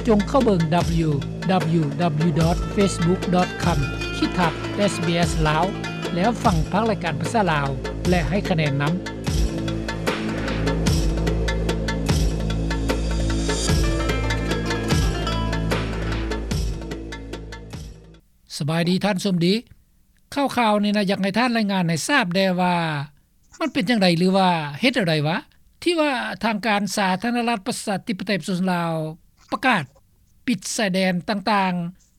ຈົ່ງເຂົ້າເບິ່ງ www.facebook.com/sbslao ແລ້ວຟັງພາກລາຍການພາສາລາວ ແລະ ໃຫ້ຄະແນນນຳ. ສະບາຍດີທ່ານສົມດີ. ຂ່າວໆນີ້ນະ ຢາກໃຫ້ທ່ານລາຍງານໃຫ້ຊາບແດ່ວ່າ ມັນເປັນຈັ່ງໃດ ຫຼືວ່າເຮັດແນວໃດຫວາ ທີ່ວ່າທາງການສາທາລະນະລັດປະຊາທິປະໄຕປະຊາຊົນລາວ ປະກາດປິດຊາຍແດນຕ່າງ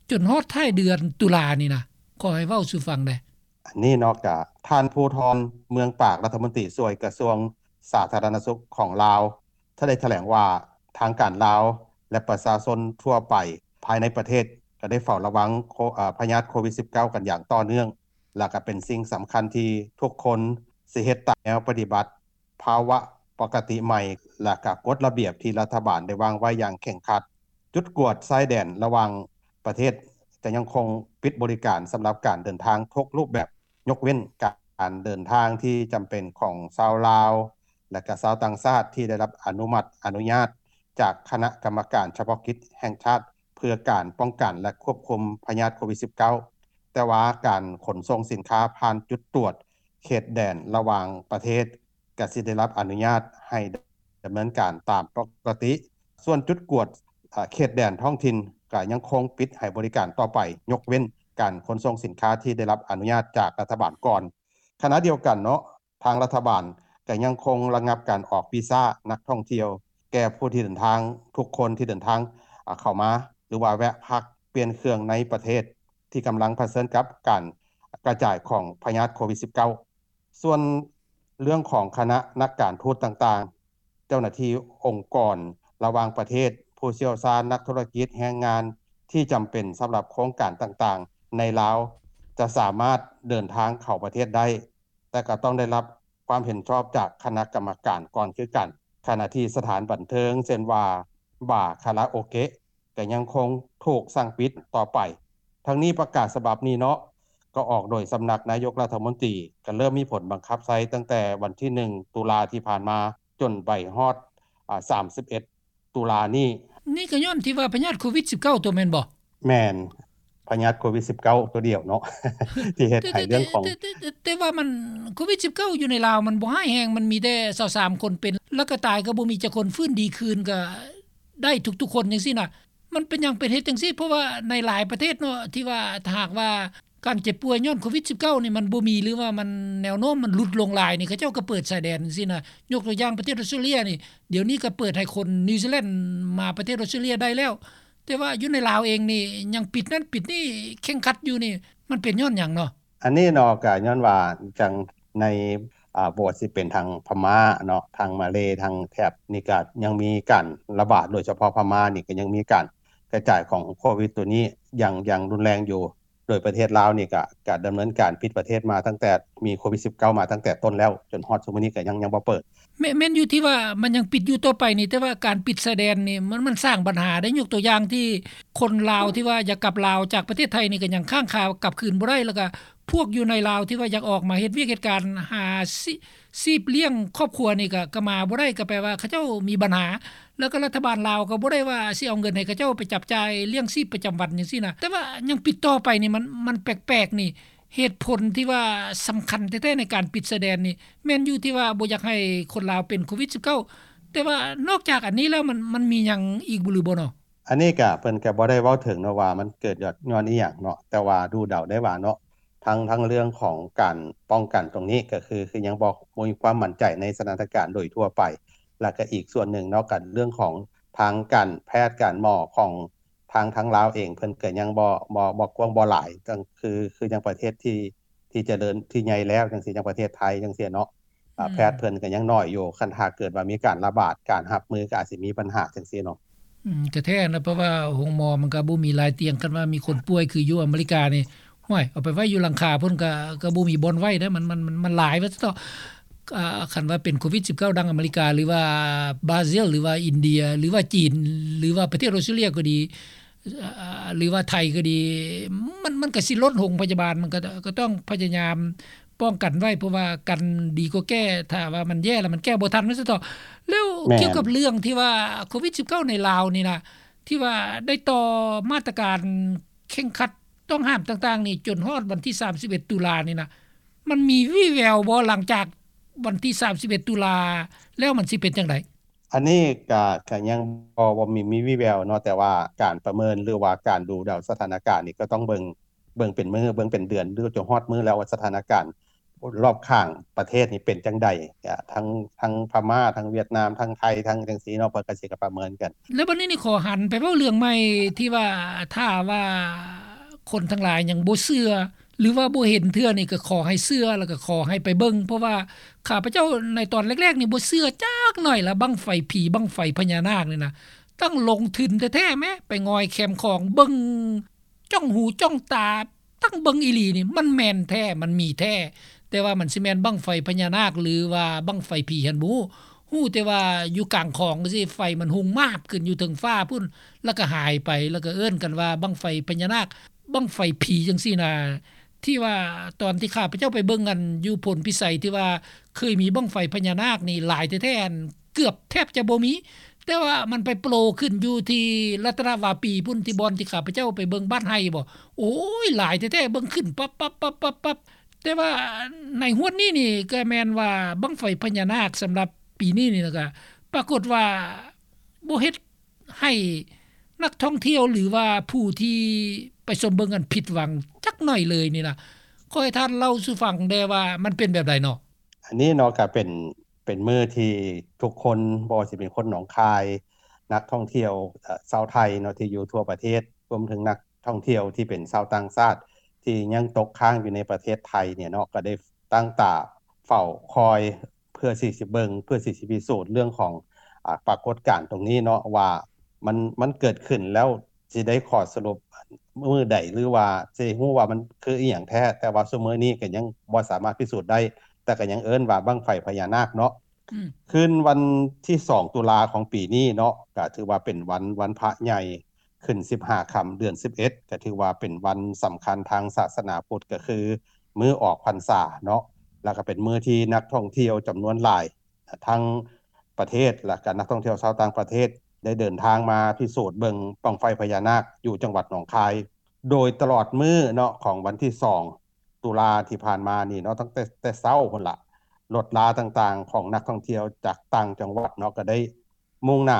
ໆ ຈົນຮອດທ້າຍເດືອນຕຸລານີ້ນະ? ຂໍໃຫ້ເວົ້າສູ່ຟັງແດ່. ອັນນີ້ເນາະ ກະທ່ານ ພູທອນ ເມືອງປາກ ລັດຖະມົນຕີຊ່ວຍກະຊວງສາທາລະນະສຸກຂອງລາວ ໄດ້ຖະແຫຼງວ່າ ທາງການລາວ ແລະ ປະຊາຊົນທົ່ວໄປພາຍໃນປະເທດ ກະໄດ້ເຝົ້າລະວັງໂຄ ເອີ ພະຍາດໂຄວິດ-ສິບເກົ້າ ກັນຢ່າງຕໍ່ເນື່ອງ ແລະ ກະເປັນສິ່ງສຳຄັນທີ່ທຸກຄົນຊິເຮັດຕາມແນວປະຕິບັດ ພາວະປົກກະຕິໃໝ່ ແລະ ກະກົດລະບຽບທີ່ລັດຖະບານໄດ້ວາງໄວ້ຢ່າງເຄັ່ງຄັດ. ຈຸດກວດຊາຍແດນລະຫວ່າງປະເທດຈະຍັງຄົງປິດບໍລິການສຳລັບການເດີນທາງທຸກຮູບແບບ, ຍົກເວັ້ນການເດີນທາງທີ່ຈຳເປັນຂອງຊາວລາວ ແລະ ກະຊາວຕ່າງຊາດທີ່ໄດ້ຮັບອະນຸມັດອະນຸຍາດຈາກຄະນະກຳມະການສະເພາະກິດແຫ່ງຊາດ ເພື່ອການປ້ອງກັນ ແລະ ຄວບຄຸມພະຍາດໂຄວິດ-ສິບເກົ້າ. ແຕ່ວ່າການຂົນສົ່ງສິນຄ້າຜ່ານຈຸດກວດເຂດແດນລະຫວ່າງປະເທດ ກະຊິໄດ້ຮັບອະນຸຍາດໃຫ້ດຳເນີນການຕາມປົກກະຕິ. ສ່ວນຈຸດກວດ ເຂດແດນທ້ອງຖິ່ນ ກະຍັງຄົງປິດໃຫ້ບໍລິການຕໍ່ໄປ, ຍົກເວັ້ນການຂົນສົ່ງສິນຄ້າທີ່ໄດ້ຮັບອະນຸຍາດຈາກລັດຖະບານກ່ອນ. ຂະນະດຽວກັນເນາະ, ທາງລັດຖະບານກະຍັງຄົງລະງັບການອອກວີຊານັກທ່ອງທ່ຽວ ແກ່ຜູ້ທີ່ເດີນທາງ, ທຸກຄົນທີ່ເດີນທາງ ອາ ເຂົ້າມາ ຫຼືວ່າແວະພັກປ່ຽນເຄື່ອງໃນປະເທດທີ່ກຳລັງຜະເຊີນກັບການກະຈາຍຂອງພະຍາດໂຄວິດ-ສິບເກົ້າ. ສ່ວນເລື່ອງຂອງຄະນະນັກການທູດຕ່າງໆ, ເຈົ້າໜ້າທີ່ອົງກອນລະຫວ່າງປະເທດ, ຜູ້ຊ່ຽວຊານ, ນັກທຸລະກິດ, ແຮງງານທີ່ຈຳເປັນສຳລັບໂຄງການຕ່າງໆໃນລາວ ຈະສາມາດເດີນທາງເຂົ້າປະເທດໄດ້, ແຕ່ກໍຕ້ອງໄດ້ຮັບຄວາມເຫັນຊອບຈາກຄະນະກຳມະການກ່ອນຄືກັນ. ຂະນະທີ່ສະຖານບັນເທີງ ເຊັ່ນວ່າ ບາ, ຄາຣາໂອເກະ ກໍຍັງຄົງຖືກສັ່ງປິດຕໍ່ໄປ. ທັງນີ້ປະກາດສະບັບນີ້ເນາະ ກໍອອກໂດຍສຳນັກນາຍົກລັດຖະມົນຕີ, ກໍເລີ່ມມີຜົນບັງຄັບໃຊ້ຕັ້ງແຕ່ວັນທີໜຶ່ງຕຸລາທີ່ຜ່ານມາ ຈົນໄປຮອດ ອາ ສາມສິບເອັດຕຸລານີ້. ນີ້ກໍຍ້ອນທີ່ວ່າພະຍາດໂຄວິດ-ສິບເກົ້າ ຕົວແມ່ນບໍ່? ແມ່ນ. ພະຍາດໂຄວິດ-ສິບເກົ້າ ຕົວດຽວເນາະ ທີ່ເຮັດໃຫ້ເລື່ອງຂອງ ແຕ່ ແຕ່ ແຕ່ ແຕ່ ແຕ່ວ່າມັນ ໂຄວິດ-ສິບເກົ້າ ຢູ່ໃນລາວມັນບໍ່ຮ້າຍແຮງ, ມັນມີແຕ່ຊາວສາມຄົນເປັນ ແລ້ວກໍຕາຍກໍບໍ່ມີຈັກຄົນ, ຟື້ນດີຄືນກໍໄດ້ທຸກໆຄົນຈັ່ງຊີ້ນະ. ມັນເປັນຫຍັງເປັນເຫດຈັ່ງຊີ້? ເພາະວ່າໃນຫຼາຍປະເທດເນາະ ທີ່ວ່າຖ້າຫາກວ່າການເຈັບປ່ວຍຍ້ອນໂຄວິດ-ສິບເກົ້າ ນີ້ມັນບໍ່ມີ ຫຼືວ່າມັນ ແນວໂນ້ມມັນຫຼຸດລົງຫຼາຍນີ້ ເຂົາເຈົ້າກໍເປີດຊາຍແດນຈັ່ງຊີ້ນະ. ຍົກຕົວຢ່າງປະເທດອອສເຕຣເລຍນີ້ ດຽວນີ້ກໍເປີດໃຫ້ຄົນນິວຊີແລນມາປະເທດອອສເຕຣເລຍໄດ້ແລ້ວ. ແຕ່ວ່າຢູ່ໃນລາວເອງນີ້ຍັງປິດນັ້ນປິດນີ້ເຄັ່ງຄັດຢູ່ນີ້ ມັນເປັນຍ້ອນຫຍັງເນາະ? ອັນນີ້ເນາະ ກະຍ້ອນວ່າຈັ່ງໃນ ອາ ບໍ່ວ່າຊິເປັນທາງພະມ້າເນາະ ທາງມາເລ ທາງແຖບນີ້ກະຍັງມີການລະບາດ, ໂດຍສະເພາະພະມ້ານີ້ກະຍັງມີການກະຈາຍຂອງໂຄວິດໂຕນີ້ຢ່າງ ຢ່າງຮຸນແຮງຢູ່. ໂດຍປະເທດລາວນີ້ກະ ກະດຳເນີນການປິດປະເທດມາຕັ້ງແຕ່ມີໂຄວິດ-ສິບເກົ້າ ມາຕັ້ງແຕ່ຕົ້ນແລ້ວ ຈົນຮອດຊຸມມື້ນີ້ກະຍັງ ຍັງບໍ່ເປີດ. ແມ່ນ ແມ່ນຢູ່ທີ່ວ່າມັນຍັງປິດຢູ່ຕໍ່ໄປນີ້, ແຕ່ວ່າການປິດຊາຍແດນນີ້ ມັນ ມັນສ້າງບັນຫາໄດ້. ຍົກຕົວຢ່າງທີ່ຄົນລາວທີ່ວ່າຢາກກັບລາວຈາກປະເທດໄທນີ້ ກໍຍັງຄ້າງຄາກັບຄືນບໍ່ໄດ້, ແລ້ວກໍພວກຢູ່ໃນລາວທີ່ວ່າຢາກອອກມາເຮັດວຽກເຮັດການ ຫາຊີ ຊີບລ້ຽງຄອບຄົວນີ້ ກໍ ກໍມາບໍ່ໄດ້, ກໍແປວ່າເຂົາເຈົ້າມີບັນຫາ. ແລ້ວກໍລັດຖະບານລາວກໍບໍ່ໄດ້ວ່າຊິເອົາເງິນໃຫ້ເຂົາເຈົ້າໄປຈັບຈ່າຍລ້ຽງຊີບປະຈຳວັນຈັ່ງຊີ້ນະ, ແຕ່ວ່າຍັງປິດຕໍ່ໄປນີ້ ມັນ ມັນແປກໆນີ້. ເຫດຜົນທີ່ວ່າສຳຄັນແທ້ໆໃນການປິດຊາຍແດນນີ້ ແມ່ນຢູ່ທີ່ວ່າບໍ່ຢາກໃຫ້ຄົນລາວເປັນໂຄວິດ-ສິບເກົ້າ ແຕ່ວ່ານອກຈາກອັນນີ້ແລ້ວ ມັນ ມັນມີຫຍັງອີກບໍ່ ຫຼືບໍ່ເນາະ? ອັນນີ້ກະເພິ່ນກະບໍ່ໄດ້ເວົ້າເຖິງເນາະວ່າມັນເກີດຍ້ອນ ຍ້ອນອີ່ຫຍັງເນາະ, ແຕ່ວ່າດູເດົາໄດ້ວ່າເນາະ ທັງ ທັງເລື່ອງຂອງການປ້ອງກັນຕົງນີ້ ກະຄື ຄືຍັງບໍ່ ບໍ່ມີຄວາມໝັ້ນໃຈໃນສະຖານະການໂດຍທົ່ວໄປ. ແລ້ວກະອີກສ່ວນໜຶ່ງເນາະ ກະເລື່ອງຂອງທາງການແພດການໝໍຂອງ ທາງ ທາງລາວເອງເພິ່ນກໍຍັງບໍ່ ບໍ່ ບໍ່ກວ້າງບໍ່ຫຼາຍ ຄື ຄືຢ່າງປະເທດທີ່ ທີ່ຈະເລີນ ທີ່ໃຫຍ່ແລ້ວຈັ່ງຊີ້ ຢ່າງປະເທດໄທຈັ່ງຊີ້ເນາະ ອືມ ແພດເພິ່ນກໍຍັງໜ້ອຍຢູ່. ຄັນຖ້າເກີດວ່າມີການລະບາດ ການຮັບມືກໍອາດຊິມີບັນຫາຈັ່ງຊີ້ເນາະ. ອືມ ກໍແທ້ນະ ເພາະວ່າໂຮງໝໍມັນກໍບໍ່ມີຫຼາຍຕຽງ. ຄັນວ່າມີຄົນປ່ວຍຄືຢູ່ອາເມລິການີ້ ຫ້ວຍ ເອົາໄປໄວ້ຢູ່ຫຼັງຄາພຸ້ນ ກໍ ກໍບໍ່ມີບ່ອນໄວ້ເດ້. ມັນ ມັນ ມັນ ມັນຫຼາຍວ່າຊັ້ນເຖາະ. ອ່າ ຄັນວ່າເປັນໂຄວິດ-ສິບເກົ້າ ດັ່ງອາເມລິກາ ຫຼືວ່າບຣາຊິລ ຫຼືວ່າອິນເດຍ ຫຼືວ່າຈີນ ຫຼືວ່າປະເທດອອສເຕຣເລຍກໍດີ ອ່າ ຫຼືວ່າໄທກໍດີ ມັນ ມັນກໍຊິລົ້ນໂຮງພະຍາບານ, ມັນກໍ ກໍຕ້ອງພະຍາຍາມປ້ອງກັນໄວ້ ເພາະວ່າກັນດີກວ່າແກ້. ຖ້າວ່າມັນແຍ່ແລ້ວ ມັນແກ້ບໍ່ທັນ ວ່າຊັ້ນເຖາະ. ແລ້ວ ແມ່ນ ກ່ຽວກັບເລື່ອງທີ່ວ່າໂຄວິດ-ສິບເກົ້າ ໃນລາວນີ້ນະ ທີ່ວ່າໄດ້ຕໍ່ມາດຕະການເຄັ່ງຄັດຕ້ອງຫ້າມຕ່າງໆນີ້ ຈົນຮອດວັນທີສາມສິບເອັດຕຸລານີ້ນະ ມັນມີວີ່ແວວບໍ່ ຫຼັງຈາກວັນທີສາມສິບເອັດຕຸລາແລ້ວ ມັນຊິເປັນຈັ່ງໃດ? ອັນນີ້ກະ ກະຍັງບໍ່ ບໍ່ມີ ມີວີ່ແວວເນາະ ແຕ່ວ່າການປະເມີນ ຫຼືວ່າການດູເດົາສະຖານະການນີ້ ກໍຕ້ອງເບິ່ງ ເບິ່ງເປັນມື້ ເບິ່ງເປັນເດືອນ ຫຼືຈົນຮອດມື້ແລ້ວວ່າສະຖານະການ ລອບຂ້າງປະເທດນີ້ເປັນຈັ່ງໃດ ກະທັງ ທັງພະມ້າ ທັງຫວຽດນາມ ທັງໄທ ທັງຈັ່ງຊີ້ເນາະ ເພິ່ນກະຊິກະປະເມີນກັນ. ແລ້ວບັດນີ້ນີ້ ຂໍຫັນໄປເວົ້າເລື່ອງໃໝ່ ທີ່ວ່າ ຖ້າວ່າຄົນທັງຫຼາຍຍັງບໍ່ເຊື່ອ ຫຼືວ່າບໍ່ເຫັນເທື່ອນີ້ ກະຂໍໃຫ້ເຊື່ອ ແລ້ວກະຂໍໃຫ້ໄປເບິ່ງ ເພາະວ່າຂ້າພະເຈົ້າໃນຕອນແລກໆນີ້ ບໍ່ເຊື່ອຈັກໜ້ອຍລະ ບັ້ງໄຟຜີ ບັ້ງໄຟພະຍານາກນີ້ນະ ຕັ້ງລົງທຶນແທ້ໆແມ້ ໄປງອຍແຄມຂອງເບິ່ງ ຈ້ອງຫູຈ້ອງຕາ ຕັ້ງເບິ່ງອີ່ຫຼີນີ້ ມັນແມ່ນແທ້ ມັນມີແທ້ ແຕ່ວ່າມັນຊິແມ່ນບັ້ງໄຟພະຍານາກ ຫຼືວ່າບັ້ງໄຟຜີຫັ້ນບໍ່ຮູ້ ຮູ້ແຕ່ວ່າຢູ່ກາງຂອງຈັ່ງຊີ້ ໄຟມັນຮຸ່ງມາບຂຶ້ນຢູ່ເທິງຟ້າພຸ້ນ ແລ້ວກໍຫາຍໄປ ແລ້ວກໍເອີ້ນກັນວ່າບັ້ງໄຟພະຍານາກ ບັ້ງໄຟຜີຈັ່ງຊີ້ນະ ທີ່ວ່າຕອນທີ່ຂ້າພະເຈົ້າໄປເບິ່ງ ອັນຢູ່ໂພນພິໄສ ທີ່ວ່າເຄີຍມີບັ້ງໄຟພະຍານາກນີ້ຫຼາຍແທ້ໆ ອັນເກືອບແທບຈະບໍ່ມີ ແຕ່ວ່າມັນໄປໂປຣຂຶ້ນຢູ່ທີ່ລັດຕະນະວາປີພຸ້ນ ທີ່ບ່ອນທີ່ຂ້າພະເຈົ້າໄປເບິ່ງບ້ານໄຮ່ບໍ ໂອ້ຍ ຫຼາຍແທ້ໆ ເບິ່ງຂຶ້ນປັບໆໆໆໆ ແຕ່ວ່າໃນຮວດນີ້ນີ້ ກໍແມ່ນວ່າບັ້ງໄຟພະຍານາກສຳລັບປີນີ້ນີ້ນະ ກໍປາກົດວ່າບໍ່ເຮັດໃຫ້ນັກທ່ອງທ່ຽວ ຫຼືວ່າຜູ້ທີ່ໄປຊົມເບິ່ງຫັ້ນຜິດຫວັງຈັກໜ້ອຍເລີຍນີ້ນະ ຂໍໃຫ້ທ່ານເລົ່າສູ່ຟັງແດ່ວ່າມັນເປັນແບບໃດເນາະ? ອັນນີ້ເນາະ ກໍເປັນ ເປັນມື້ທີ່ທຸກຄົນ ບໍ່ວ່າຊິເປັນຄົນໜອງຄາຍ ນັກທ່ອງທ່ຽວ ເອີ ຊາວໄທເນາະ ທີ່ຢູ່ທົ່ວປະເທດ ລວມເຖິງນັກທ່ອງທ່ຽວທີ່ເປັນຊາວຕ່າງຊາດ ທີ່ຍັງຕົກຄ້າງຢູ່ໃນປະເທດໄທນີ້ເນາະ ກໍໄດ້ຕັ້ງຕາເຝົ້າຄອຍ ເພື່ອທີ່ຊິເບິ່ງ ເພື່ອທີ່ຊິພິສູດເລື່ອງຂອງ ອາ ປາກົດການຕົງນີ້ເນາະ ວ່າມັນ ມັນເກີດຂຶ້ນແລ້ວ ຊິໄດ້ຂໍ້ສະຫຼຸບມື້ໃດ ຫຼືວ່າຊິຮູ້ວ່າມັນຄືອີ່ຫຍັງແທ້ ແຕ່ວ່າຊຸມມື້ນີ້ກໍຍັງບໍ່ສາມາດພິສູດໄດ້ ແຕ່ກໍຍັງເອີ້ນວ່າບັ້ງໄຟພະຍານາກເນາະ. ອືມ ຄືນວັນທີສອງຕຸລາຂອງປີນີ້ເນາະ ກໍຖືວ່າເປັນວັນ ວັນພະໃຫຍ່ ຂຶ້ນສິບຫ້າຄ່ຳເດືອນສິບເອັດ ກໍຖືວ່າເປັນວັນສຳຄັນທາງສາສະໜາພຸດ ກໍຄືມື້ອອກພັນສາເນາະ ແລ້ວກໍເປັນມື້ທີ່ນັກທ່ອງທ່ຽວຈຳນວນຫຼາຍ ທັງປະເທດ ແລະກະນັກທ່ອງທ່ຽວຊາວຕ່າງປະເທດ ໄດ້ເດີນທາງມາພິສູດເບິ່ງບັ້ງໄຟພະຍານາກຢູ່ຈັງຫວັດໜອງຄາຍ ໂດຍຕະຫຼອດມື້ເນາະ ຂອງວັນທີສອງຕຸລາທີ່ຜ່ານມານີ້ເນາະ ຕັ້ງແຕ່ ແຕ່ເຊົ້າພຸ້ນລະ ລົດລາຕ່າງໆຂອງນັກທ່ອງທ່ຽວຈາກຕ່າງຈັງຫວັດເນາະ ກະໄດ້ມຸ່ງໜ້າ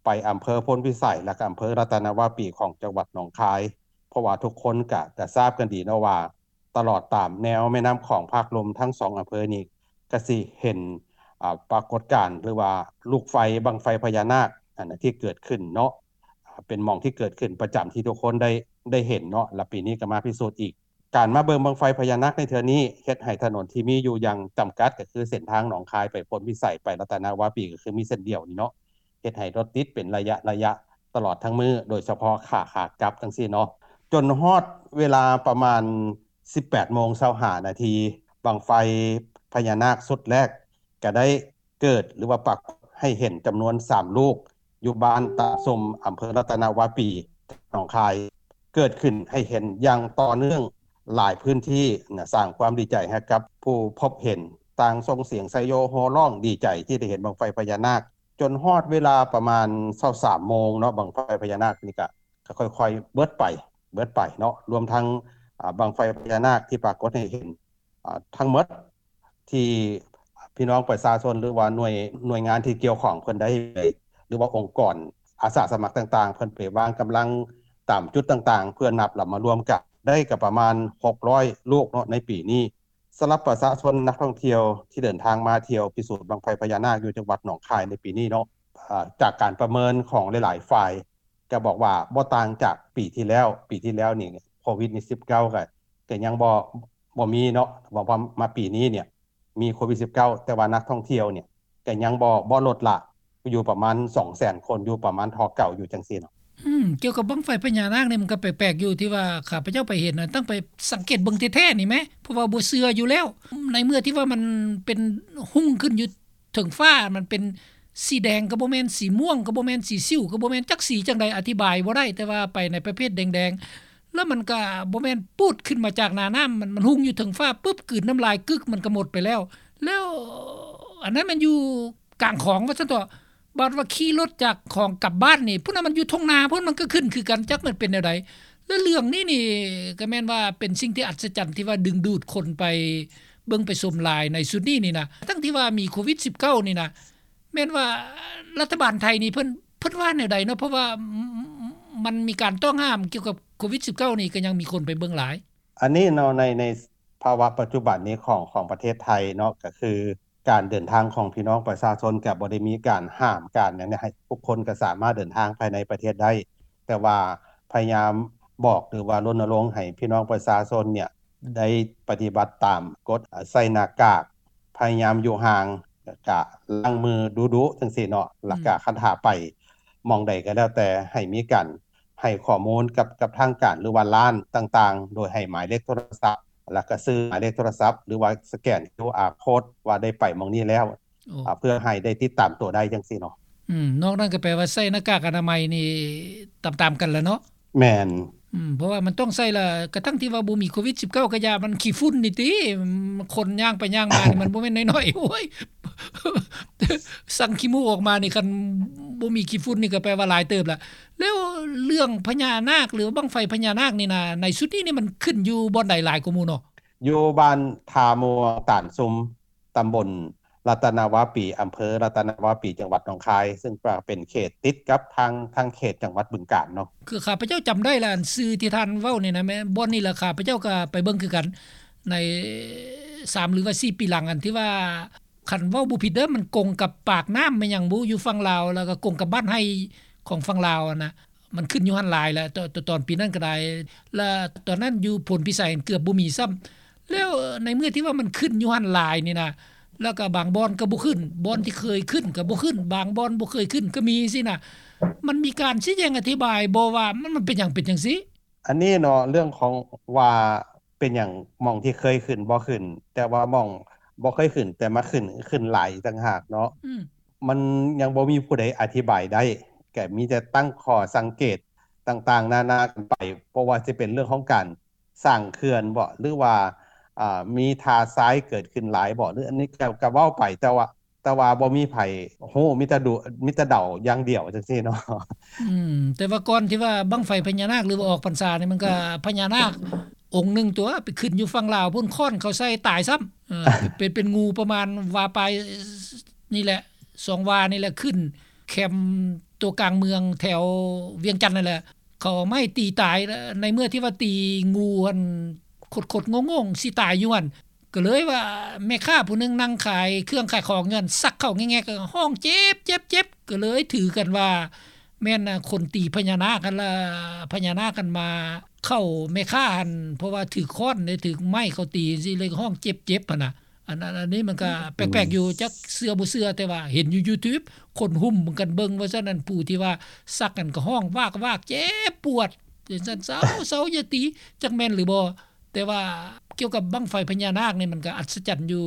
ໄປອຳເພີໂພນພິໄສ ແລະກະອຳເພີລັດຕະນະວາປີຂອງຈັງຫວັດໜອງຄາຍ ເພາະວ່າທຸກຄົນກະ ກະຊາບກັນດີເນາະວ່າ ຕະຫຼອດຕາມແນວແມ່ນ້ຳຂອງພາກລຸ່ມທັງສອງອຳເພີນີ້ ກະຊິເຫັນ ອາ ປາກົດການ ຫຼືວ່າລູກໄຟ ບັ້ງໄຟພະຍານາກ ອັນທີ່ເກີດຂຶ້ນເນາະ ເປັນໝ່ອງທີ່ເກີດຂຶ້ນປະຈຳທີ່ທຸກຄົນໄດ້ ໄດ້ເຫັນເນາະ ແລະປີນີ້ກະມາພິສູດອີກ. ການມາເບິ່ງບັ້ງໄຟພະຍານາກໃນເທື່ອນີ້ ເຮັດໃຫ້ຖະໜົນທີ່ມີຢູ່ຢ່າງຈຳກັດ ກະຄືເສັ້ນທາງໜອງຄາຍໄປໂພນພິໄສ ໄປລັດຕະນະວາປີ ກະຄືມີເສັ້ນດຽວນີ້ເນາະ ເຮັດໃຫ້ລົດຕິດເປັນໄລຍະໆ ຕະຫຼອດທັງມື້ ໂດຍສະເພາະຂາ ຂາກັບຈັ່ງຊີ້ເນາະ ຈົນຮອດເວລາປະມານ ສິບແປດໂມງຊາວຫ້ານາທີ ບັ້ງໄຟພະຍານາກຊຸດແລກກະໄດ້ເກີດ ຫຼືວ່າປາກົດໃຫ້ເຫັນຈຳນວນສາມລູກ ຢູ່ບ້ານຕາສົມ ອຳເພີລັດຕະນະວາປີ ໜອງຄາຍ ເກີດຂຶ້ນໃຫ້ເຫັນຢ່າງຕໍ່ເນື່ອງຫຼາຍພື້ນທີ່ນະ ສ້າງຄວາມດີໃຈໃຫ້ກັບຜູ້ພົບເຫັນ ຕ່າງສົ່ງສຽງໄຊໂຍໂຫ່ຮ້ອງດີໃຈທີ່ໄດ້ເຫັນບັ້ງໄຟພະຍານາກ ຈົນຮອດເວລາປະມານຊາວສາມໂມງເນາະ ບັ້ງໄຟພະຍານາກນີ້ກະ ກະຄ່ອຍໆເບິດໄປ ເບິດໄປເນາະ ລວມທັງ ອາ ບັ້ງໄຟພະຍານາກທີ່ປາກົດໃຫ້ເຫັນ ອາ ທັງໝົດ ທີ່ພີ່ນ້ອງປະຊາຊົນ ຫຼືວ່າໜ່ວຍ ໜ່ວຍງານທີ່ກ່ຽວຂ້ອງເພິ່ນໄດ້ ຫຼືວ່າອົງກອນອາສາສະໝັກຕ່າງໆ ເພິ່ນໄປວາງກຳລັງຕາມຈຸດຕ່າງໆ ເພື່ອນັບລະມາລວມກັນ ໄດ້ກະປະມານຫົກຮ້ອຍລູກເນາະ ໃນປີນີ້. ສຳລັບປະຊາຊົນນັກທ່ອງທ່ຽວທີ່ເດີນທາງມາທ່ຽວພິສູດບັ້ງໄຟພະຍານາກຢູ່ຈັງຫວັດໜອງຄາຍໃນປີນີ້ເນາະ ອາ ຈາກການປະເມີນຂອງຫຼາຍໆຝ່າຍ ກະບອກວ່າບໍ່ຕ່າງຈາກປີທີ່ແລ້ວ ປີທີ່ແລ້ວນີ້ໂຄວິດສິບເກົ້າກະ ກະຍັງບໍ່ ບໍ່ມີເນາະ ວ່າ ວ່າມາປີນີ້ນີ້ມີໂຄວິດສິບເກົ້າ ແຕ່ວ່ານັກທ່ອງທ່ຽວນີ້ກະຍັງບໍ່ ບໍ່ລົດລະ ຢູ່ປະມານສອງແສນຄົນ ຢູ່ປະມານທໍ່ເກົ່າຢູ່ຈັ່ງຊີ້ເນາະ. ອືມ ກ່ຽວກັບບັ້ງໄຟພະຍານາກນີ້ ມັນກະແປກໆຢູ່ ທີ່ວ່າຂ້າພະເຈົ້າໄປເຫັນນະ ຕ້ອງໄປສັງເກດເບິ່ງແທ້ໆນີ້ແມ້ ເພາະວ່າບໍ່ເຊື່ອຢູ່ແລ້ວ ໃນເມື່ອທີ່ວ່າມັນເປັນຮຸ່ງຂຶ້ນຢູ່ ເທິງຟ້າ ມັນເປັນສີແດງກະບໍ່ແມ່ນ ສີມ່ວງກະບໍ່ແມ່ນ ສີສິວກະບໍ່ແມ່ນ ຈັກສີຈັ່ງໃດ ອະທິບາຍບໍ່ໄດ້ ແຕ່ວ່າໄປໃນປະເພດແດງໆ ແລ້ວມັນກະບໍ່ແມ່ນປູດຂຶ້ນມາຈາກໜ້ານ້ຳ ມັນ ມັນຮຸ່ງຢູ່ເທິງຟ້າປຶບ ກືນນ້ຳລາຍກຶກ ມັນກະໝົດໄປແລ້ວ ແລ້ວອັນນັ້ນມັນຢູ່ກາງຂອງວ່າຊັ້ນເຖາະ ບາດວ່າຂີ່ລົດຈາກຂອງກັບບ້ານນີ້ ພຸ້ນນະ ມັນຢູ່ທົ່ງນາພຸ້ນ ມັນກໍຂຶ້ນຄືກັນ ຈັກມັນເປັນແນວໃດ. ແລະເລື່ອງນີ້ນີ້ກໍແມ່ນວ່າເປັນສິ່ງທີ່ອັດສະຈັນ ທີ່ວ່າດຶງດູດຄົນໄປເບິ່ງໄປຊົມຫຼາຍໃນຊຸດນີ້ນີ້ນະ ທັງທີ່ວ່າມີໂຄວິດສິບເກົ້ານີ້ນະ. ແມ່ນວ່າລັດຖະບານໄທນີ້ເພິ່ນ ເພິ່ນວ່າແນວໃດເນາະ ເພາະວ່າ ມັນມີການຕ້ອງຫ້າມກ່ຽວກັບໂຄວິດສິບເກົ້ານີ້ ກໍຍັງມີຄົນໄປເບິ່ງຫຼາຍ. ອັນນີ້ເນາະ ໃນ ໃນພາວະປັດຈຸບັນນີ້ຂອງ ຂອງປະເທດໄທເນາະ ກໍຄືການເດີນທາງຂອງພີ່ນ້ອງປະຊາຊົນ ກໍບໍ່ໄດ້ມີການຫ້າມການຫຍັງໃຫ້ ທຸກຄົນກໍສາມາດເດີນທາງພາຍໃນປະເທດໄດ້ ແຕ່ວ່າພະຍາຍາມບອກ ຫຼືວ່າລົນນະລົງໃຫ້ພີ່ນ້ອງປະຊາຊົນເນຍ ໄດ້ປະຕິບັດຕາມກົດ ໃສ່ໜ້າກາກ ພະຍາຍາມຢູ່ຫ່າງ ແລ້ວກະລ້າງມືດຸໆ ຈັ່ງຊີ້ເນາະ ແລ້ວກະຄັນຖ້າໄປໝ່ອງໃດກໍແລ້ວແຕ່ ໃຫ້ມີການໃຫ້ຂໍ້ມູນກັບ ກັບທາງການ ຫຼືວ່າຮ້ານຕ່າງໆ ໂດຍໃຫ້ໝາຍເລກໂທລະສັບ ແລ້ວກະຊື່ໝາຍເລກໂທລະສັບ ຫຼືວ່າສະແກນຄິວອາໂຄດ ວ່າໄດ້ໄປໝ່ອງນີ້ແລ້ວ ເພື່ອໃຫ້ໄດ້ຕິດຕາມຕົວໄດ້ ຈັ່ງຊີ້ເນາະ. ອືມ ນອກນັ້ນກໍແປວ່າໃສ່ໜ້າກາກອະນາໄມນີ້ຕາມໆກັນລະເນາະ. ແມ່ນ ອືມ ເພາະວ່າມັນຕ້ອງໃສ່ລະ ກະທັ່ງທີ່ວ່າບໍ່ມີໂຄວິດສິບເກົ້າກະຢ່າ ມັນຂີ້ຝຸ່ນນີ້ຕິ ຄົນຍ່າງໄປຍ່າງມານີ້ ມັນບໍ່ແມ່ນນ້ອຍໆ ໂອ້ຍ ສັງຂີ້ມູກອອກມານີ້ ຄັນບໍ່ມີຂີ້ຝຸ່ນນີ້ກະແປວ່າຫຼາຍເຕີບລະ. ແລ້ວເລື່ອງພະຍານາກ ຫຼືວ່າບັ້ງໄຟພະຍານາກນີ້ນະ ໃນຊຸດນີ້ນີ້ມັນຂຶ້ນຢູ່ບ່ອນໃດຫຼາຍກວ່າໝູ່ເນາະ? ຢູ່ບ້ານທ່າມ່ວງຕານຊຸມ ຕຳບົນລັດຕະນະວາປີ ອຳເພີລັດຕະນະວາປີ ຈັງຫວັດໜອງຄາຍ ຊຶ່ງກໍເປັນເຂດຕິດກັບທາງ ທາງເຂດຈັງຫວັດບຶງການເນາະ. ຄືຂ້າພະເຈົ້າຈຳໄດ້ລະ ອັນຊື່ທີ່ທ່ານເວົ້ານີ້ນະ ແມ່ນບ່ອນນີ້ລະ ຂ້າພະເຈົ້າກໍໄປເບິ່ງຄືກັນ ໃນສາມ ຫຼືວ່າສີ່ປີຫຼັງ ອັນທີ່ວ່າ ຄັນເວົ້າບໍ່ຜິດເດີ ມັນກົງກັບປາກນ້ຳແມ່ນຫຍັງບໍ່ ຢູ່ຝັ່ງລາວ ແລ້ວກໍກົງກັບບ້ານໄຮ່ຂອງຝັ່ງລາວຫັ້ນນະ. ມັນຂຶ້ນຢູ່ຫັ້ນຫຼາຍແຫຼະ ຕອນ ຕອນປີນັ້ນກໍໄດ້ ແລະຕອນນັ້ນຢູ່ໂພນພິໄສເກືອບບໍ່ມີຊ້ຳ. ແລ້ວໃນເມື່ອທີ່ວ່າມັນຂຶ້ນຢູ່ຫັ້ນຫຼາຍນີ້ນະ ແລ້ວກໍບາງບ່ອນກໍບໍ່ຂຶ້ນ ບ່ອນທີ່ເຄີຍຂຶ້ນກໍບໍ່ຂຶ້ນ ບາງບ່ອນບໍ່ເຄີຍຂຶ້ນກໍມີຊີ້ນະ ມັນມີການຊີ້ແຈງອະທິບາຍບໍ່ວ່າ ມັນ ມັນເປັນຫຍັງເປັນຈັ່ງຊີ້? ອັນນີ້ເນາະ ເລື່ອງຂອງວ່າເປັນຫຍັງໝ່ອງທີ່ເຄີຍຂຶ້ນບໍ່ຂຶ້ນ ແຕ່ວ່າໝ່ອງບໍ່ເຄີຍຂຶ້ນ ແຕ່ມາຂຶ້ນ ຂຶ້ນຫຼາຍອີກຕ່າງຫາກເນາະ. ອືມ ມັນຍັງບໍ່ມີຜູ້ໃດອະທິບາຍໄດ້ ກໍມີແຕ່ຕັ້ງຂໍ້ສັງເກດຕ່າງໆນານາກັນໄປ ບໍ່ວ່າຊິເປັນເລື່ອງຂອງການສ້າງເຂື່ອນບໍ ຫຼືວ່າ ອ່າ ມີທ່າຊາຍເກີດຂຶ້ນຫຼາຍບໍ ຫຼື ອັນນີ້ກໍ ກໍເວົ້າໄປ ແຕ່ວ່າ ແຕ່ວ່າບໍ່ມີໃຜຮູ້ ມີແຕ່ດູ ມີແຕ່ເດົາຢ່າງດຽວ ຈັ່ງຊີ້ເນາະ. ອືມ ແຕ່ວ່າກ່ອນທີ່ວ່າບັ້ງໄຟພະຍານາກ ຫຼືວ່າອອກພັນສານີ້ ມັນກໍພະຍານາກອົງໜຶ່ງຕົວະ ໄປຂຶ້ນຢູ່ຝັ່ງລາວພຸ້ນ ຄ້ອນເຂົາໃສ່ຕາຍຊ້ຳ ເອີ ເປັນ ເປັນ ເປັນງູປະມານວາປາຍນີ້ແຫຼະ ສອງວານີ້ແຫຼະ ຂຶ້ນແຄມຕົວກາງເມືອງແຖວວຽງຈັນນັ້ນແຫຼະ ເຂົາເອົາໄມ້ຕີຕາຍ ໃນເມື່ອທີ່ວ່າຕີງູຫັ້ນ ຄົດໆໂງ່ງໆ ຊິຕາຍຢູ່ຫັ້ນ ກໍເລີຍວ່າແມ່ຄ້າຜູ້ໜຶ່ງນັ່ງຂາຍເຄື່ອງຂາຍຂອງຢູ່ຫັ້ນ ຊັກເຂົ້າແງກໆ ຮ້ອງເຈັບ ເຈັບ ເຈັບ ກໍເລີຍຖືກັນວ່າແມ່ນຄົນຕີພະຍານາກຫັ້ນລະ ພະຍານາກຫັ້ນມາເຂົ້າແມ່ຄ້າຫັ້ນ ເພາະວ່າຖືກຄ້ອນ ຖືກໄມ້ເຂົາຕີຈັ່ງຊີ້ ເລີຍຮ້ອງເຈັບ ເຈັບຫັ້ນນະ. ອັນ ອັນ ອັນນີ້ມັນກໍແປກໆຢູ່ ຈັກເຊື່ອບໍ່ເຊື່ອ ແຕ່ວ່າເຫັນຢູ່ຢູທູບ ຄົນຫຸ້ມກັນເບິ່ງວ່າຊັ້ນ ອັນຜູ້ທີ່ວ່າສັກນັ້ນກໍຮ້ອງວາກໆ ເຈັບປວດ ຈັ່ງຊັ້ນ ເຊົາ ເຊົາ ຢ່າຕີ ຈັກແມ່ນຫຼືບໍ່. ແຕ່ວ່າກ່ຽວກັບບັ້ງໄຟພະຍານາກນີ້ ມັນກໍອັດສະຈັນຢູ່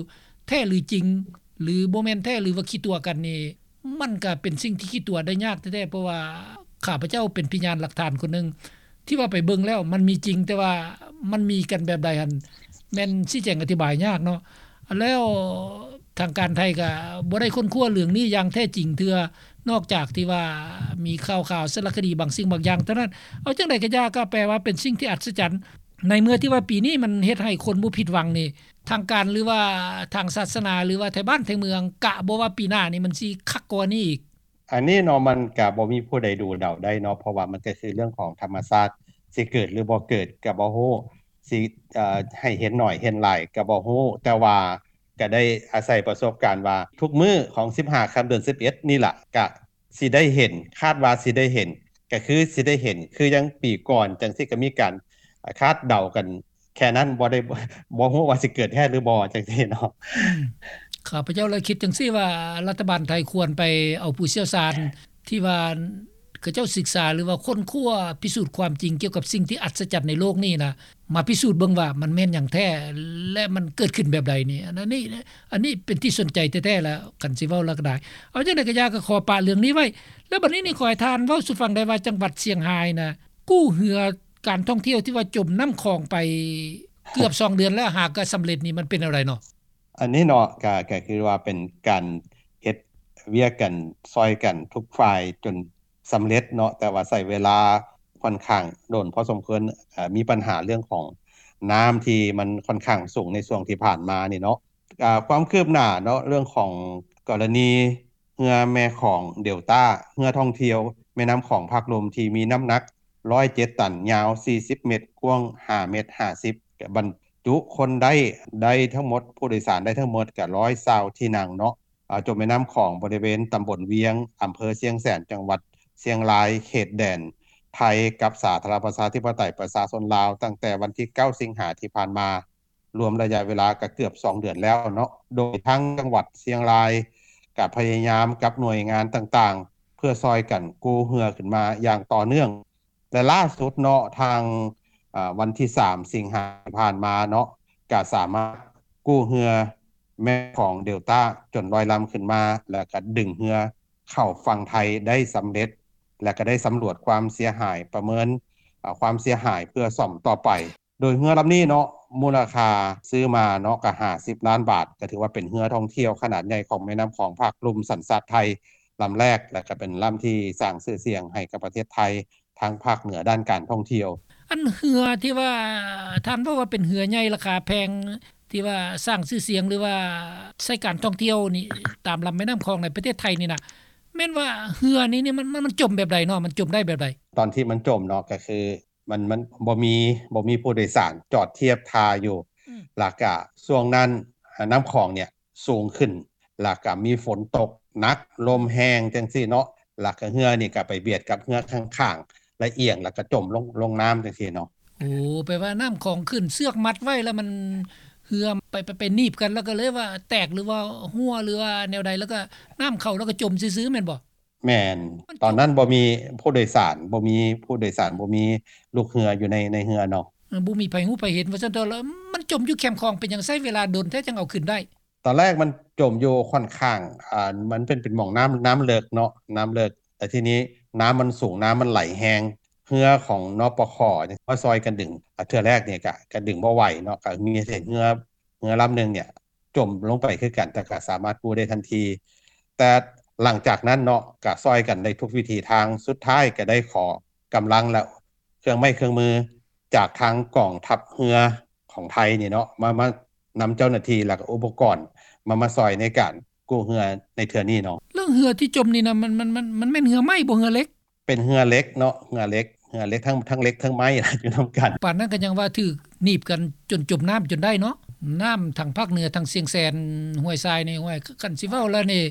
ແທ້ຫຼືຈິງ ຫຼືບໍ່ແມ່ນແທ້ ຫຼືວ່າຂີ້ຕົວະກັນນີ້ ມັນກໍເປັນສິ່ງທີ່ຂີ້ຕົວະໄດ້ຍາກແທ້ໆ ເພາະວ່າຂ້າພະເຈົ້າເປັນພະຍານຫຼັກຖານຄົນໜຶ່ງ ທີ່ວ່າໄປເບິ່ງແລ້ວມັນມີຈິງ ແຕ່ວ່າມັນມີກັນແບບໃດຫັ້ນ ແມ່ນຊີ້ແຈງອະທິບາຍຍາກເນາະ. ແລ້ວທາງການໄທກໍບໍ່ໄດ້ຄົ້ນຄວ້າເລື່ອງນີ້ຢ່າງແທ້ຈິງເທື່ອ ນອກຈາກທີ່ວ່າມີຂ່າວໆ ສາລະຄະດີບາງສິ່ງບາງຢ່າງເທົ່ານັ້ນ. ເອົາຈັ່ງໃດກໍຢ່າ ກໍແປວ່າເປັນສິ່ງທີ່ອັດສະຈັນ ໃນເມື່ອທີ່ວ່າປີນີ້ມັນເຮັດໃຫ້ຄົນບໍ່ຜິດຫວັງນີ້ ທາງການ ຫຼືວ່າທາງສາສະໜາ ຫຼືວ່າໄທບ້ານໄທເມືອງ ກະບໍ່ວ່າປີໜ້ານີ້ມັນຊິຄັກກວ່ານີ້ອີກ? ອັນນີ້ເນາະ ມັນກະບໍ່ມີຜູ້ໃດດູເດົາໄດ້ເນາະ ເພາະວ່າມັນກະຄືເລື່ອງຂອງທຳມະຊາດ ຊິເກີດຫຼືບໍ່ເກີດກະບໍ່ຮູ້ ຊິ ເອີ ໃຫ້ເຫັນໜ້ອຍເຫັນຫຼາຍກະບໍ່ຮູ້ ແຕ່ວ່າກະໄດ້ອາໄສປະສົບການວ່າ ທຸກມື້ຂອງສິບຫ້າຄ່ຳເດືອນສິບເອັດນີ້ລະ ກະຊິໄດ້ເຫັນ ຄາດວ່າຊິໄດ້ເຫັນ ກະຄືຊິໄດ້ເຫັນ ຄືຢ່າງປີກ່ອນຈັ່ງຊີ້ ກະມີການຄາດເດົາກັນ ແຄ່ນັ້ນ ບໍ່ໄດ້ ບໍ່ຮູ້ວ່າຊິເກີດແທ້ຫຼືບໍ່ ຈັ່ງຊີ້ເນາະ. ອືມ ຂ້າພະເຈົ້າລະຄິດຈັ່ງຊີ້ວ່າ ລັດຖະບານໄທຄວນໄປເອົາຜູ້ຊ່ຽວຊານທີ່ວ່າເຂົາເຈົ້າສຶກສາ ຫຼືວ່າຄົ້ນຄວ້າພິສູດຄວາມຈິງກ່ຽວກັບສິ່ງທີ່ອັດສະຈັນໃນໂລກນີ້ນະ ມາພິສູດເບິ່ງວ່າມັນແມ່ນຫຍັງແທ້ ແລະ ມັນເກີດຂຶ້ນແບບໃດນີ້. ອັນນີ້ ອັນນີ້ເປັນທີ່ສົນໃຈແທ້ໆ ລະ ຄັນຊິເວົ້າລະກະໄດ້. ເອົາຈັ່ງໃດກະຢ່າ ກະຂໍປະເລື່ອງນີ້ໄວ້ ແລະ ບັດນີ້ນີ້ຂໍໃຫ້ທ່ານເວົ້າສູ່ຟັງໄດ້ວ່າ ຈັງຫວັດຊຽງຮາຍນະ ກູ້ເຮືອ ການທ່ອງທ່ຽວທີ່ວ່າຈົມນ້ຳຂອງໄປເກືອບສອງເດືອນແລ້ວ ຫາກະສຳເລັດນີ້ ມັນເປັນແນວໃດເນາະ? ອັນນີ້ເນາະ ກະ ກະຄືວ່າເປັນການເຮັດ ວຽກກັນ ຊ່ອຍກັນທຸກຝ່າຍຈົນສຳເລັດເນາະ, ແຕ່ວ່າໃຊ້ເວລາຂ້ອນຂ້າງດົນພໍສົມຄວນ, ເອີ່ ມີບັນຫາເລື່ອງຂອງນ້ຳທີ່ມັນຂ້ອນຂ້າງສູງໃນຊ່ວງທີ່ຜ່ານມານີ້ເນາະ. ອາ ຄວາມຄືບໜ້າເນາະ ເລື່ອງຂອງກໍລະນີເຮືອແມ່ຂອງເດລຕ້າ ເຮືອທ່ອງທ່ຽວແມ່ນ້ຳຂອງພາກລຸ່ມທີ່ມີນ້ຳໜັກ ຮ້ອຍເຈັດຕັນ, ຍາວສີ່ສິບເມັດ, ກວ້າງຫ້າເມັດຫ້າສິບ, ບັນຈຸຄົນໄດ້ ໄດ້ທັງໝົດ ຜູ້ໂດຍສານໄດ້ທັງໝົດກະຮ້ອຍຊາວທີ່ນັ່ງເນາະ. ອາ ຈົມແມ່ນ້ຳຂອງບໍລິເວນຕຳບົນວຽງ ອຳເພີຊຽງແສນ ຈັງຫວັດຊຽງລາຍ ເຂດແດນໄທກັບສາທາລະນະລັດປະຊາທິປະໄຕປະຊາຊົນລາວ ຕັ້ງແຕ່ວັນທີເກົ້າ ສິງຫາທີ່ຜ່ານມາ ລວມໄລຍະເວລາກໍເກືອບສອງເດືອນແລ້ວເນາະ, ໂດຍທາງຈັງຫວັດຊຽງລາຍກໍພະຍາຍາມກັບໜ່ວຍງານຕ່າງໆ ເພື່ອຊ່ອຍກັນກູ້ເຮືອຂຶ້ນມາຢ່າງຕໍ່ເນື່ອງ ແລະ ລ່າສຸດເນາະ ທາງ ອາ ວັນທີສາມ ສິງຫາທີ່ຜ່ານມາເນາະ ກໍສາມາດກູ້ເຮືອແມ່ຂອງເດລຕ້າຈົນລອຍລຳຂຶ້ນມາ ແລະ ກໍດຶງເຮືອເຂົ້າຝັ່ງໄທໄດ້ສຳເລັດ ແລະ ກໍໄດ້ສຳຫຼວດຄວາມເສຍຫາຍ ປະເມີນ ອາ ຄວາມເສຍຫາຍເພື່ອສ້ອມຕໍ່ໄປ. ໂດຍເຮືອລຳນີ້ເນາະ ມູນລະຄ່າຊື້ມາເນາະ ກໍຫ້າສິບລ້ານບາດ, ກໍຖືວ່າເປັນເຮືອທ່ອງທ່ຽວຂະໜາດໃຫຍ່ຂອງແມ່ນ້ຳຂອງພາກລຸ່ມສັນຊາດໄທລຳແລກ ແລະ ກໍເປັນລຳທີ່ສ້າງຊື່ສຽງໃຫ້ກັບປະເທດໄທທາງພາກເໜືອດ້ານການທ່ອງທ່ຽວ. ອັນເຮືອທີ່ວ່າທ່ານເວົ້າວ່າເປັນເຮືອໃຫຍ່ລາຄາແພງ ທີ່ວ່າສ້າງຊື່ສຽງ ຫຼືວ່າໃຊ້ການທ່ອງທ່ຽວນີ້ ຕາມລຳແມ່ນ້ຳຂອງໃນປະເທດໄທນີ້ນະ ແມ່ນວ່າເຮືອນີ້ນີ້ມັນ ມັນ ມັນຈົມແບບໃດເນາະ? ມັນຈົມໄດ້ແບບໃດ? ຕອນທີ່ມັນຈົມເນາະ ກໍຄື ມັນ ມັນບໍ່ມີ ບໍ່ມີຜູ້ໂດຍສານຈອດທຽບທ່າຢູ່ ອືມ ແລ້ວກະຊ່ວງນັ້ນ ອາ ນ້ຳຂອງເນີ້ຍສູງຂຶ້ນ ແລ້ວກະມີຝົນຕົກໜັກ ລົມແຮງຈັ່ງຊີ້ເນາະ ແລ້ວກະເຮືອນີ້ກະໄປບຽດກັບເຮືອຂ້າງໆ ແລ້ວອຽງ ແລ້ວກະຈົມລົງ ລົງນ້ຳຈັ່ງຊີ້ເນາະ. ໂອ້ ແປວ່ານ້ຳຂອງຂຶ້ນ ເຊືອກມັດໄວ້ ແລ້ວມັນ ເຮືອໄປ ໄປ ໄປໜີບກັນ ແລ້ວກະເລີຍວ່າແຕກ ຫຼືວ່າຮົ່ວ ຫຼືວ່າແນວໃດ ແລ້ວກະນ້ຳເຂົ້າ ແລ້ວກະຈົມຊື່ໆ ແມ່ນບໍ່? ແມ່ນ ມັນຈົມ ຕອນນັ້ນບໍ່ມີຜູ້ໂດຍສານ ບໍ່ມີຜູ້ໂດຍສານ ບໍ່ມີລູກເຮືອຢູ່ໃນ ໃນເຮືອເນາະ. ເອີ ບໍ່ມີໃຜຮູ້ໃຜເຫັນວ່າຊັ້ນເຖາະ. ແລ້ວມັນຈົມຢູ່ແຄມຂອງ ເປັນຫຍັງໃຊ້ເວລາດົນແທ້ຈັ່ງເອົາຂຶ້ນໄດ້? ຕອນແລກມັນຈົມຢູ່ຂ້ອນຂ້າງ ອາ ມັນເປັນ ເປັນໝ່ອງນ້ຳ ນ້ຳເລິກເນາະ ນ້ຳເລິກ ແຕ່ທີນີ້ນ້ຳມັນສູງ ນ້ຳມັນໄຫຼແຮງ ເຮືອຂອງ ນປຂ ມາຊ່ອຍກັນດຶງ ອາ ເທື່ອແລກນີ້ກະ ກະດຶງບໍ່ໄຫວເນາະ ກະມີເຫັນເຮືອ ເຮືອລຳໜຶ່ງເນີ້ຍ ຈົມລົງໄປຄືກັນ ແຕ່ກໍສາມາດກູ້ໄດ້ທັນທີ. ແຕ່ຫຼັງຈາກນັ້ນເນາະ ກໍຊ່ອຍກັນໄດ້ທຸກວິທີທາງ ສຸດທ້າຍກໍໄດ້ຂໍກຳລັງ ແລະ ເຄື່ອງໄມ້ເຄື່ອງມືຈາກທາງກອງທັບເຮືອຂອງໄທນີ້ເນາະ ມາ ມານຳເຈົ້າໜ້າທີ່ ແລະ ກໍອຸປະກອນ ມາ ມາຊ່ອຍໃນການກູ້ເຮືອໃນເທື່ອນີ້ເນາະ. ເລື່ອງເຮືອທີ່ຈົມນີ້ນະ ມັນ ມັນ ມັນ ມັນແມ່ນເຮືອໄມ້ບໍ່ ເຮືອເຫຼັກ? ເປັນເຮືອເຫຼັກເນາະ ເຮືອເຫຼັກ ເຮືອເຫຼັກ ທັງ ທັງເຫຼັກທັງໄມ້ ຢູ່ນຳກັນ. ປານນັ້ນກໍຍັງວ່າຖືກໜີບກັນຈົນຈົມນ້ຳຈົນໄດ້ເນາະ. ນ້ຳທາງພາກເໜືອ ທາງຊຽງແສນ ຫ້ວຍຊາຍນີ້ ຫ້ວຍ ຄັນຊິເວົ້າແລ້ວນີ້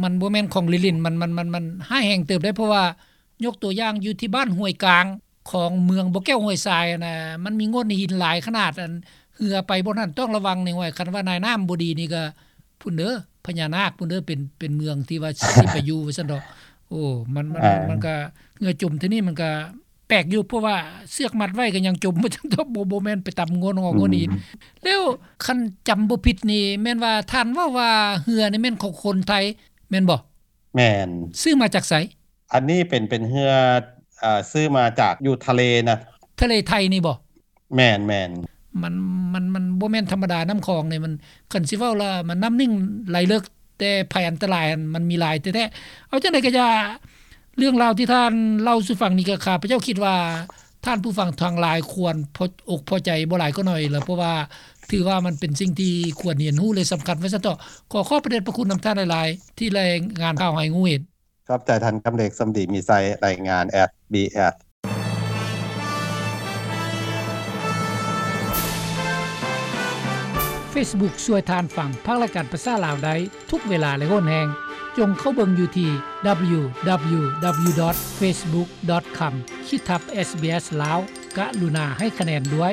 ມັນບໍ່ແມ່ນຂອງຫຼິ້ນໆ ມັນ ມັນ ມັນ ມັນຮ້າຍແຮງເຕີບເດ້ ເພາະວ່າຍົກຕົວຢ່າງຢູ່ທີ່ບ້ານຫ້ວຍກາງ ຂອງເມືອງບໍ່ແກ້ວຫ້ວຍຊາຍຫັ້ນນະ ມັນມີໂງ່ນຫີນຫຼາຍຂະໜາດ ອັນ ເຮືອໄປບ່ອນນັ້ນຕ້ອງລະວັງນີ້ ຫ້ວຍ ຄັນວ່ານາຍນ້ຳບໍ່ດີນີ້ກໍ ພຸ້ນເດີ ພະຍານາກພຸ້ນເດີ ເປັນ ເປັນເມືອງທີ່ວ່າຊິໄປຢູ່ ວ່າຊັ້ນເຖາະ. ໂອ້ ມັນ ມັນ ອ່າ ມັນກະ ເຮືອຈົມເທື່ອນີ້ມັນກະແປກຢູ່ ເພາະວ່າເຊືອກມັດໄວ້ກໍຍັງຈົມ ວ່າຊັ້ນເຖາະ ບໍ່ ບໍ່ແມ່ນໄປຕຳງົນຫອ ອືມ ງົນອີກ. ແລ້ວຄັນຈຳບໍ່ຜິດນີ້ ແມ່ນວ່າທ່ານເວົ້າວ່າເຮືອນີ້ແມ່ນຂອງຄົນໄທ ແມ່ນບໍ່? ແມ່ນ. ຊື້ມາຈາກໃສ? ອັນນີ້ເປັນ ເປັນເຮືອ ເອີ ຊື້ມາຈາກຢູ່ທະເລນະ. ທະເລໄທນີ້ບໍ່? ແມ່ນໆ. ມັນ ມັນ ມັນບໍ່ແມ່ນທຳມະດາ ນ້ຳຂອງນີ້ມັນ ຄັນຊິເວົ້າລະມັນນ້ຳໜຶ່ງໄຫຼເລິກ ແຕ່ໄພອັນຕະລາຍຫັ້ນມັນມີຫຼາຍແທ້ໆ. ເອົາຈັ່ງໃດກໍຢ່າ ເລື່ອງລາວທີ່ທ່ານເລົ່າສູ່ຟັງນີ້ ກໍຂ້າພະເຈົ້າຄິດວ່າທ່ານຜູ້ຟັງທັງຫຼາຍຄວນພໍ ອົກພໍໃຈບໍ່ຫຼາຍກໍໜ້ອຍລະ ເພາະວ່າຖືວ່າມັນເປັນສິ່ງທີ່ຄວນຮຽນຮູ້ ແລະ ສຳຄັນວ່າຊັ້ນເຖາະ. ຂໍຂອບພະເດດພະຄຸນນຳທ່ານຫຼາຍໆ ທີ່ລາຍງານຂ່າວໃຫ້ຮູ້ເຫັນ. ຂອບໃຈທ່ານ ຄຳເລັກ ສົມດີມີໄຊ ລາຍງານ ເອສບີເອສ. Facebook ຊ່ວຍທ່ານຟັງພາກລາຍການພາສາລາວໄດ້ທຸກເວລາ ແລະ ໂຫນແຮງ. ຈົ່ງເຂົ້າເບິ່ງຢູ່ທີ່ www.facebook.com ຂີດທັບ SBS ລາວ. ກະລຸນາໃຫ້ຄະແນນດ້ວຍ.